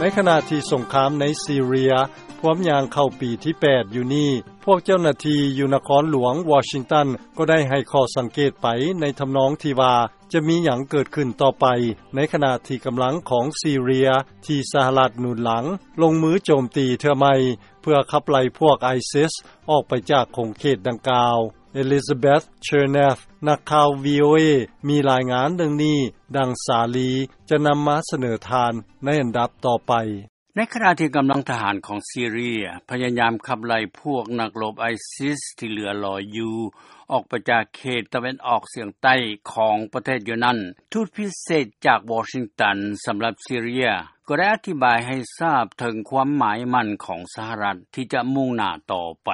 ໃນຂະນະທີ່ສົງຄາມໃນຊີເຣຍພວມຍ່າງເຂົ້າປີທີແປດຢູ່ນີ້, ພວກເຈົ້າໜ້າທີ່ຢູ່ນະຄອນຫຼວງວໍຊິງຕັນກໍໄດ້ໃຫ້ຂໍ້ສັງເກດໄປໃນທຳນອງທີ່ວ່າຈະມີຫຍັງເກີດຂຶ້ນຕໍ່ໄປ, ໃນຂະນະທີ່ກຳລັງຂອງຊີເຣຍທີ່ສະຫະລັດໜູນຫຼັງລົງມືໂຈມຕີເທື່ອໃໝ່ ເພື່ອຂັບໄລ່ພວກໄອຊິສອອກໄປຈາກຂົງເຂດດັ່ງກ່າວ. ເອລິຊາເບັດ ເຊີແນັຟ ນັກຂ່າວ ວີໂອເອ ມີລາຍງານເລື່ອງນີ້, ດັ່ງສາລີຈະນຳມາສະເໜີທ່ານໃນອັນດັບຕໍ່ໄປ. ໃນຂະນະທີ່ກຳລັງທະຫານຂອງຊີເຣຍພະຍາຍາມຂັບໄລ່ພວກນັກລົບໄອຊິສທີ່ເຫຼືອລອຍຢູ່ອອກໄປຈາກເຂດຕາເວັນອອກສຽງໃຕ້ຂອງປະເທດຢູ່ນັ້ນ, ທູດພິເສດຈາກວໍຊິງຕັນສຳລັບຊີເຣຍກໍໄດ້ອະທິບາຍໃຫ້ຊາບເຖິງຄວາມໝາຍໝັ້ນຂອງສະຫະລັດທີ່ຈະມຸ່ງໜ້າຕໍ່ໄປ.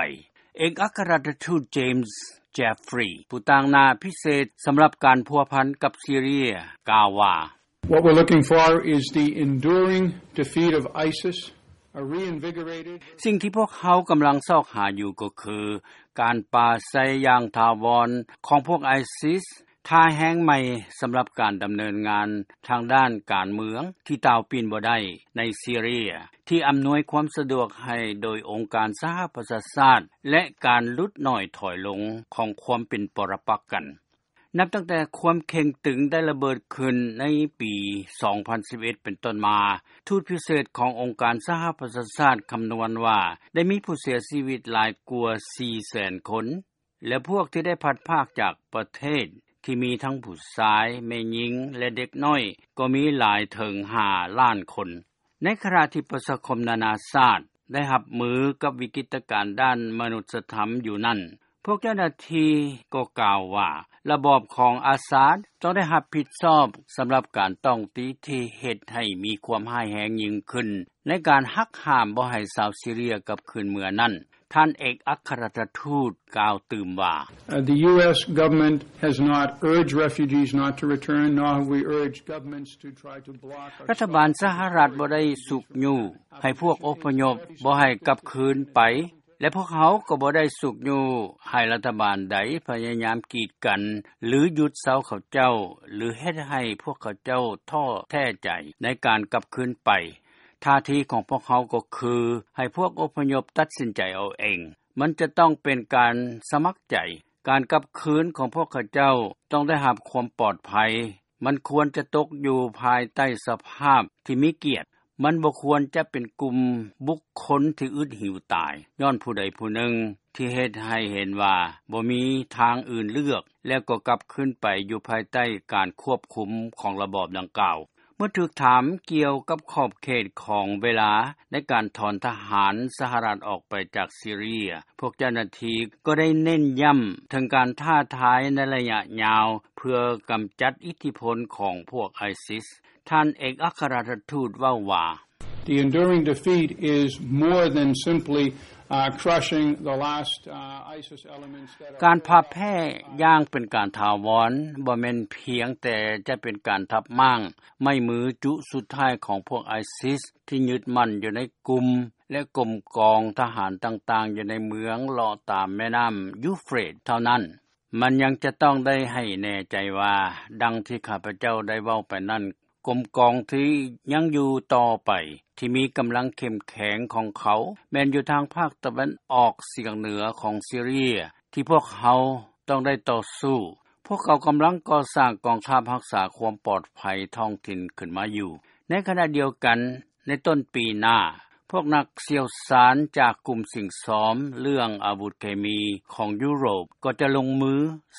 ເອກອັກຄະລັດຖະທູດ ເຈມສ໌ ເຈຟຣີ ຜູ້ຕາງໜ້າພິເສດສຳລັບການພົວພັນກັບຊີເຣຍ ກ່າວວ່າ: What we're looking for is the enduring defeat of ISIS, a reinvigorated ສິ່ງທີ່ພວກເຮົາກຳລັງຊອກຫາຢູ່ກໍຄື ການປາໄຊຢ່າງຖາວອນຂອງພວກໄອຊິສ, ທ່າແຮງໃໝ່ສຳລັບການດຳເນີນງານທາງດ້ານການເມືອງທີ່ຕ່າວປິ່ນບໍ່ໄດ້ໃນຊີເຣຍ, ທີ່ອຳນວຍຄວາມສະດວກໃຫ້ໂດຍອົງການສະຫະປະຊາຊາດ ແລະ ການຫຼຸດໜ້ອຍຖອຍລົງຂອງຄວາມເປັນປະລະປັກກັນ. ນັບຕັ້ງແຕ່ຄວາມເຄັ່ງຕຶງໄດ້ລະເບີດຂຶ້ນໃນປີສອງພັນສິບເອັດເປັນຕົ້ນມາ, ທູດພິເສດຂອງອົງການສະຫະປະຊາຊາດຄຳນວນວ່າ ໄດ້ມີຜູ້ເສຍຊີວິດຫຼາຍກວ່າສີ່ແສນຄົນ ແລະ ພວກທີ່ໄດ້ພັດພາກຈາກປະເທດ ທີ່ມີທັງຜູ້ຊາຍ, ແມ່ຍິງ ແລະ ເດັກນ້ອຍ ກໍມີຫຼາຍເຖິງຫ້າລ້ານຄົນ. ໃນຂະນະທີ່ປະຊາຄົມນານາຊາດໄດ້ຮັບມືກັບວິກິດຕະການດ້ານມະນຸດສະທຳຢູ່ນັ້ນ, ພວກເຈົ້າໜ້າທີ່ກໍກ່າວວ່າ ລະບອບຂອງອາຊາດຕ້ອງໄດ້ຮັບຜິດຊອບສຳລັບການຕ້ອງຕີທີ່ເຮັດໃຫ້ມີຄວາມຮ້າຍແຮງຍິ່ງຂຶ້ນໃນການຫັກຫ້າມບໍ່ໃຫ້ຊາວຊີເຣຍກັບຄືນເມືອນັ້ນ. ທ່ານເອກອັກຄະລັດຖະທູດກ່າວຕື່ມວ່າ: Uh, the U S government has not urged refugees not to return, nor have we urged governments to try to block or ລັດຖະບານສະຫະລັດບໍ່ໄດ້ຊຸກຍູ້ໃຫ້ພວກອົບພະຍົບບໍ່ໃຫ້ກັບຄືນໄປ ແລະ ພວກເຮົາກໍບໍ່ໄດ້ຊຸກຍູ້ໃຫ້ລັດຖະບານໃດພະຍາຍາມກີດກັນ ຫຼື ຢຸດເຊົາເຂົາເຈົ້າ ຫຼື ເຮັດໃຫ້ພວກເຂົາເຈົ້າທໍ້ແທ້ໃຈໃນການກັບຄືນໄປ. ທ່າທີຂອງພວກເຮົາກໍຄືໃຫ້ພວກອົບພະຍົບຕັດສິນໃຈເອົາເອງ. ມັນຈະຕ້ອງເປັນການສະໝັກໃຈ. ການກັບຄືນຂອງພວກເຂົາເຈົ້າຕ້ອງໄດ້ຮັບຄວາມປອດໄພ. ມັນຄວນຈະຕົກຢູ່ພາຍໃຕ້ສະພາບທີ່ມີກຽດ. ມັນບໍ່ຄວນຈະເປັນກຸ່ມບຸກຄົນທີ່ອຶດຫິວຕາຍ ຍ້ອນຜູ້ໃດຜູ້ໜຶ່ງ ທີ່ເຮັດໃຫ້ເຫັນວ່າບໍ່ມີທາງອື່ນເລືອກ ແລ້ວກໍກັບຄືນໄປຢູ່ພາຍໃຕ້ການຄວບຄຸມຂອງລະບອບດັ່ງກ່າວ. ເມື່ອຖືກຖາມກ່ຽວກັບຂອບເຂດຂອງເວລາໃນການຖອນທະຫານສະຫະລັດອອກໄປຈາກຊີເຣຍ, ພວກເຈົ້າໜ້າທີ່ກໍໄດ້ເນັ້ນຢ້ຳເຖິງການທ້າທາຍໃນໄລຍະຍາວ ເພື່ອກຳຈັດອິດທິພົນຂອງພວກໄອຊິສ. ທ່ານເອກອັກຄະລັດຖະທູດເວົ້າວ່າ: The enduring defeat is more than simply, uh, crushing the last, uh, ISIS elements that are ການພ່າຍແພ້ຢ່າງເປັນການຖາວອນ ບໍ່ແມ່ນພຽງແຕ່ຈະເປັນການທັບມ້າງໄມ້ມືຈຸສຸດທ້າຍຂອງພວກໄອຊິສທີ່ຍຶດໝັ້ນຢູ່ໃນກຸ່ມ ແລະ ກົມກອງທະຫານຕ່າງໆຢູ່ໃນເມືອງເລາະຕາມແມ່ນ້ຳຢູເຟຣດເທົ່ານັ້ນ. ມັນຍັງຈະຕ້ອງໄດ້ໃຫ້ແນ່ໃຈວ່າ ດັ່ງທີ່ຂ້າພະເຈົ້າໄດ້ເວົ້າໄປນັ້ນ, ກົມກອງທີ່ຍັງຢູ່ຕໍ່ໄປ ທີ່ມີກຳລັງເຂັ້ມແຂງຂອງເຂົາ ແມ່ນຢູ່ທາງພາກຕາເວັນອອກສຽງເໜືອຂອງຊີເຣຍ ທີ່ພວກເຮົາຕ້ອງໄດ້ຕໍ່ສູ້. ພວກເຂົາກຳລັງກໍ່ສ້າງກອງທັບຮັກສາຄວາມປອດໄພທ້ອງຖິ່ນຂຶ້ນມາຢູ່. ໃນຂະນະດຽວກັນ, ໃນຕົ້ນປີໜ້າ, ພວກນັກຊ່ຽວຊານຈາກກຸ່ມສິ່ງຊອມເລື່ອງອາວຸດເຄມີຂອງຢູໂຣບ ກໍຈະລົງມື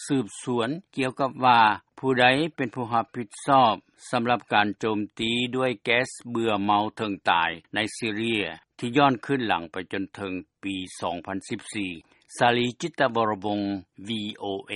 ສືບສວນກ່ຽວກັບວ່າ ຜູ້ໃດເປັນຜູ້ຮັບຜິດຊອບສຳລັບການໂຈມຕີດ້ວຍແກັສເບື່ອເມົາເຖິງຕາຍໃນຊີເຣຍ ທີ່ຍ້ອນຄືນຫຼັງໄປຈົນເຖິງປີສອງພັນສິບສີ່. ສາລີ ຈິດຕະວໍລະວົງ ວີໂອເອ.